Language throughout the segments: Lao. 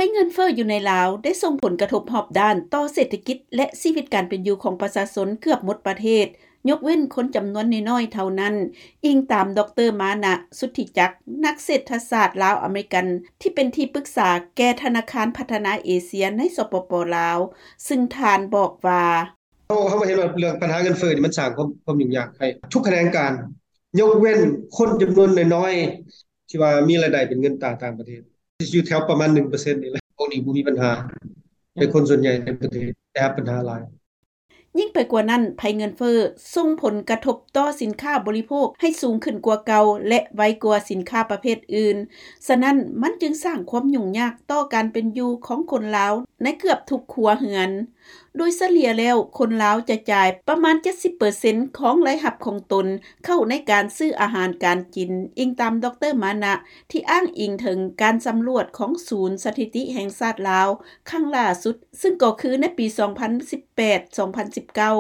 ຍເງິນເຟີ້ຢູ່ໃນລາວ ໄດ້ສົ່ງຜົນກະທົບຮອບດ້ານຕໍ່ເສດຖະກິດ ແລະ ຊີວິດການເປັນຢູ່ຂອງປະຊາຊົນເກືອບໝົດປະເທດ, ຍົກເວັ້ນຄົນຈຳນວນນ້ອຍໆເທົ່ານັ້ນ, ອີງຕາມ ດຣ. ມານະ ສຸດທິຈັກ ນັກເສດຖະສາດລາວ-ອາເມລິກັນ ທີ່ເປັນທີ່ປຶກສາແກ່ທະນາຄານພັດທະນາເອເຊຍໃນ ສປປ ລາວ, ຊຶ່ງທ່ານບອກວ່າ: “ເຮົາ ເຮົາກໍເຫັນວ່າເລື່ອງບັນຫາເງິນເຟີ້ນີ້ ມັນສ້າງຄວາມ ຄວາມຫຍຸ້ງຍາກໃຫ້ທຸກຂະແໜງການ, ຍົກເວັ້ນຄົນຈຳນວນນ້ອຍໆ ທີ່ວ່າມີລາຍໄດ້ເປັນເງິນຕາຕ່າງປະເທດ ຢູ່ແຖວປະມານ ໜຶ່ງເປີເຊັນນີ້ແຫຼະ. ພວກນີ້ບໍ່ມີບັນຫາ, ແຕ່ຄົນສ່ວນໃຫຍ່ໃນປະເທດໄດ້ຮັບບັນຫາຫຼາຍ.” ຍິ່ງໄປກວ່ານັ້ນ, ໄພເງິນເຟີ້ສົ່ງຜົນກະທົບຕໍ່ສິນຄ້າບໍລິໂພກໃຫ້ສູງຂຶ້ນກວ່າເກົ່າ ແລະ ໄວກວ່າສິນຄ້າປະເພດອື່ນ, ສະນັ້ນ ມັນຈຶ່ງສ້າງຄວາມຫຍຸ້ງຍາກຕໍ່ການເປັນຢູ່ຂອງຄົນລາວໃນເກືອບທຸກຄົວເຮືອນ. ໂດຍສະເລ່ຍແລ້ວ, ຄົນລາວຈະຈ່າຍປະມານ ເຈັດສິບເປີເຊັນ ຂອງລາຍຮັບຂອງຕົນເຂົ້າໃນການຊື້ອາຫານການກິນ, ອີງຕາມ ດຣ. ມານະ ທີ່ອ້າງອີງເຖິງການສຳຫຼວດຂອງສູນສະຖິຕິແຫ່ງຊາດລາວ ຄັ້ງລ່າສຸດ, ຊຶ່ງກໍຄືໃນປີ ສອງພັນສິບແປດ ສອງພັນສິບເກົ້າ.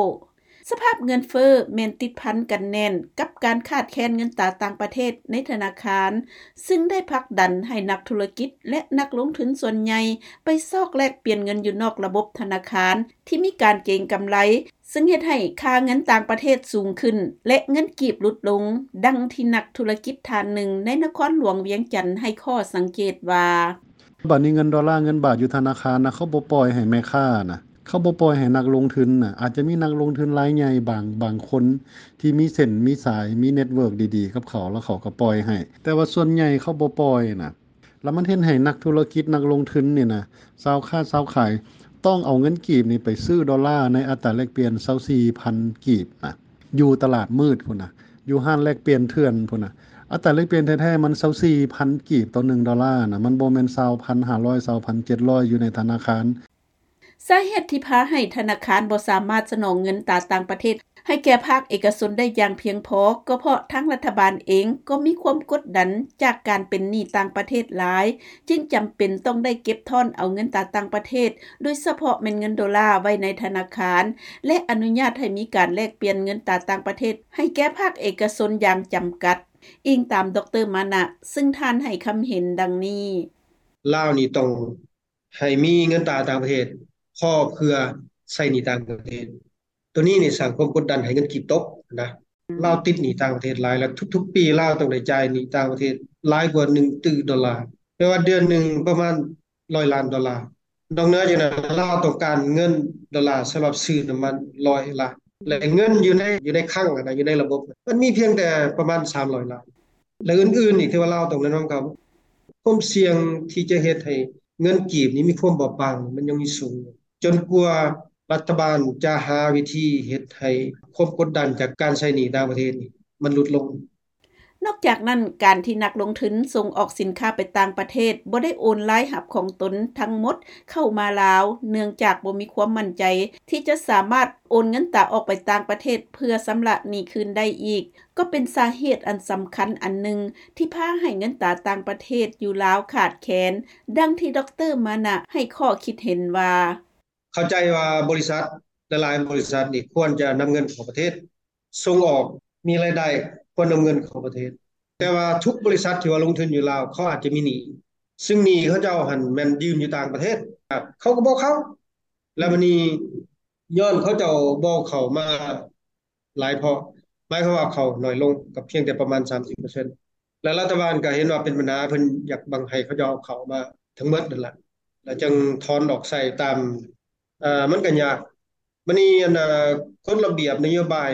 ສະພາບເງິນເຟີ້ແມ່ນຕິດພັນກັນແໜ້ນກັບການຂາດແຄນເງິນຕາຕ່າງປະເທດໃນທະນາຄານ, ຊຶ່ງໄດ້ຜັກດັນໃຫ້ນັກທຸລະກິດ ແລະ ນັກລົງທຶນສ່ວນໃຫຍ່ໄປຊອກແລກປ່ຽນເງິນຢູ່ນອກລະບົບທະນາຄານທີ່ມີການເກັງກຳໄລ, ຊຶ່ງເຮັດໃຫ້ຄ່າເງິນຕ່າງປະເທດສູງຂຶ້ນ ແລະ ເງິນກີບຫຼຸດລົງ, ດັ່ງທີ່ນັກທຸລະກິດທ່ານໜຶ່ງໃນນະຄອນຫຼວງວຽງຈັນໃຫ້ຂໍ້ສັງເກດວ່າ: “ບາດນີ້ເງິນໂດລາ ເງິນບາດຢູ່ທະນາຄານນະ ເຂົາບໍ່ປ່ອຍໃຫ້ແມ່ຄ້ານະ, ເຂົາບໍ່ປ່ອຍໃຫ້ນັກລົງທຶນນະ. ອາດຈະມີນັກລົງທຶນລາຍໃຫຍ່ບາງ ບາງຄົນທີ່ມີເສັ້ນມີສາຍ ມີເນັດເວີກດີໆກັບເຂົາ ແລ້ວເຂົາກໍປ່ອຍໃຫ້, ແຕ່ວ່າສ່ວນໃຫຍ່ເຂົາບໍ່ປ່ອຍນະ. ແລ້ວມັນເຮັດໃຫ້ນັກທຸລະກິດ ນັກລົງທຶນນີ້ນະ, ຊາວຄ້າຊາວຂາຍ ຕ້ອງເອົາເງິນກີບນີ້ໄປຊື້ໂດລາໃນອັດຕາແລກປ່ຽນ ຊາວສີ່ພັນ ກີບນະ, ຢູ່ຕະຫຼາດມືດພຸ້ນນະ, ຢູ່ຮ້ານແລກປ່ຽນເຖື່ອນພຸ້ນນະ. ອັດຕາແລກປ່ຽນແທ້ໆ ມັນ ຊາວສີ່ພັນ ກີບຕໍ່ໜຶ່ງໂດລານະ, ມັນບໍ່ແມ່ນ ຊາວພັນຫ້າຮ້ອຍ ຊາວພັນເຈັດຮ້ອຍ ຢູ່ໃນທະນາຄານ.” ສາເຫດທີ່ພາໃຫ້ທະນາຄານບໍ່ສາມາດສະໜອງເງິນຕາຕ່າງປະເທດໃຫ້ແກ່ພາກເອກະຊົນໄດ້ຢ່າງພຽງພໍ ກໍເພາະທາງລັດຖະບານເອງກໍມີຄວາມກົດດັນຈາກການເປັນໜີ້ຕ່າງປະເທດຫຼາຍ, ຈຶ່ງຈຳເປັນຕ້ອງໄດ້ເກັບທ້ອນເອົາເງິນຕາຕ່າງປະເທດ, ໂດຍສະເພາະແມ່ນເງິນໂດລາໄວ້ໃນທະນາຄານ ແລະ ອະນຸຍາດໃຫ້ມີການແລກປ່ຽນເງິນຕາຕ່າງປະເທດໃຫ້ແກ່ພາກເອກະຊົນຢ່າງຈຳກັດ, ອີງຕາມ ດຣ. ມານະ ຊຶ່ງທ່ານໃຫ້ຄຳເຫັນດັ່ງນີ້: “ລາວນີ້ຕ້ອງ ໃຫ້ມີເງິນຕາຕ່າງປະເທດພໍເພື່ອໃຊ້ໜີ້ຕ່າງປະເທດ. ໂຕນີ້ນີ້ສ້າງຄວາມກົດດັນໃຫ້ເງິນກີບຕົກນະ. ລາວຕິດໜີ້ຕ່າງປະເທດຫຼາຍ ແລ້ວທຸກໆປີລາວຕ້ອງໄດ້ຈ່າຍໜີ້ຕ່າງປະເທດຫຼາຍກວ່າໜຶ່ງຕື້ໂດລາ, ແປວ່າເດືອນໜຶ່ງປະມານຮ້ອຍລ້ານໂດລາ. ນອກເໜືອຈາກນັ້ນ ລາວຕ້ອງການເງິນໂດລາສຳລັບຊື້ນ້ຳມັນຮ້ອຍລ້ານ ແລະ ເງິນຢູ່ໃນ ຢູ່ໃນຄັງຫັ້ນນະ ຢູ່ໃນລະບົບ ມັນມີພຽງແຕ່ປະມານສາມຮ້ອຍລ້ານ ແລະ ອື່ນໆອີກທີ່ວ່າລາວຕ້ອງແນະນຳເຂົາ. ຄວາມສ່ຽງທີ່ຈະເຮັດໃຫ້ເງິນກີບນີ້ມີຄວາມບອບບາງ ມັນຍັງມີສູງ ຈົນກວ່າລັດຖະບານຈະຫາວິທີເຮັດໃຫ້ຄວາມກົດດັນຈາກການໃຊ້ໜີ້ຕ່າງປະເທດນີ້ມັນຫຼຸດລົງ.” ນອກຈາກນັ້ນ, ການທີ່ນັກລົງທຶນສົ່ງອອກສິນຄ້າໄປຕ່າງປະເທດ ບໍ່ໄດ້ໂອນລາຍຮັບຂອງຕົນທັງໝົດເຂົ້າມາລາວ ເນື່ອງຈາກບໍ່ມີຄວາມໝັ້ນໃຈທີ່ຈະສາມາດໂອນເງິນຕາອອກໄປຕ່າງປະເທດເພື່ອຊຳລະໜີ້ຄືນໄດ້ອີກ, ກໍເປັນສາເຫດອັນສຳຄັນອັນໜຶ່ງທີ່ພາໃຫ້ເງິນຕາຕ່າງປະເທດຢູ່ລາວຂາດແຄນ, ດັ່ງທີ່ ດຣ. ມານະ ໃຫ້ຂໍ້ຄິດເຫັນວ່າ: “ເຂົ້າໃຈວ່າບໍລິສັດຫຼາຍໆບໍລິສັດນີ້ຄວນຈະນຳເງິນເຂົ້າປະເທດ, ສົ່ງອອກມີລາຍໄດ້ ຄວນນຳເງິນເຂົ້າປະເທດ, ແຕ່ວ່າທຸກບໍລິສັດທີ່ວ່າລົງທຶນຢູ່ລາວ ເຂົາອາດຈະມີໜີ້, ຊຶ່ງໜີ້ເຂົາເຈົ້າຫັ້ນແມ່ນຢືມຢູ່ຕ່າງປະເທດ, ເຂົາກໍບໍ່ເຂົ້າ. ແລ້ວບາດນີ້ຍ້ອນເຂົາເຈົ້າບໍ່ເຂົ້າມາ ຫຼາຍເພາະ ໝາຍຄວາມວ່າເຂົ້າໜ້ອຍລົງ ກໍພຽງແຕ່ປະມານສາມສິບເປີເຊັນ ແລະ ລັດຖະບານກໍເຫັນວ່າເປັນບັນຫາ ເພິ່ນຢາກບັງໃຫ້ເຂົາເຈົ້າເອົາເຂົ້າມາທັງໝົດນັ້ນລະ ແລ້ວຈຶ່ງຖອນອອກໃຊ້ຕາມ ເອີ ມັນກໍຍາກ. ບັດນີ້ ອັນ ເອີ ກົດລະບຽບນະໂຍບາຍ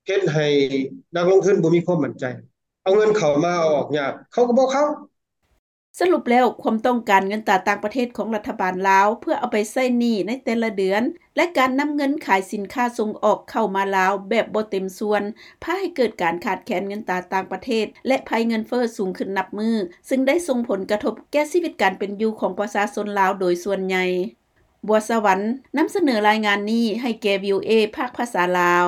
ເຮັດໃຫ້ນັກລົງທຶນບໍ່ມີຄວາມໝັ້ນໃຈ ເອົາເງິນເຂົ້າມາເອົາອອກຍາກ ເຂົາກໍບໍ່ເຂົ້າ.” ສະຫຼຸບແລ້ວ, ຄວາມຕ້ອງການເງິນຕາຕ່າງປະເທດຂອງລັດຖະບານລາວ ເພື່ອເອົາໄປໃຊ້ໜີ້ໃນແຕ່ລະເດືອນ ແລະ ການນຳເງິນຂາຍສິນຄ້າສົ່ງອອກເຂົ້າມາລາວແບບບໍ່ເຕັມສ່ວນ ພາໃຫ້ເກີດການຂາດແຄນເງິນຕາຕ່າງປະເທດ ແລະ ໄພເງິນເຟີ້ສູງຂຶ້ນນັບມື້, ຊຶ່ງໄດ້ສົ່ງຜົນກະທົບແກ່ຊີວິດການເປັນຢູ່ຂອງປະຊາຊົນລາວໂດຍສ່ວນໃຫຍ່. ບົວສະຫວັນ ນຳສະເໜີລາຍງານນີ້ໃຫ້ແກ່ ວີໂອເອ ພາກພາສາລາວ.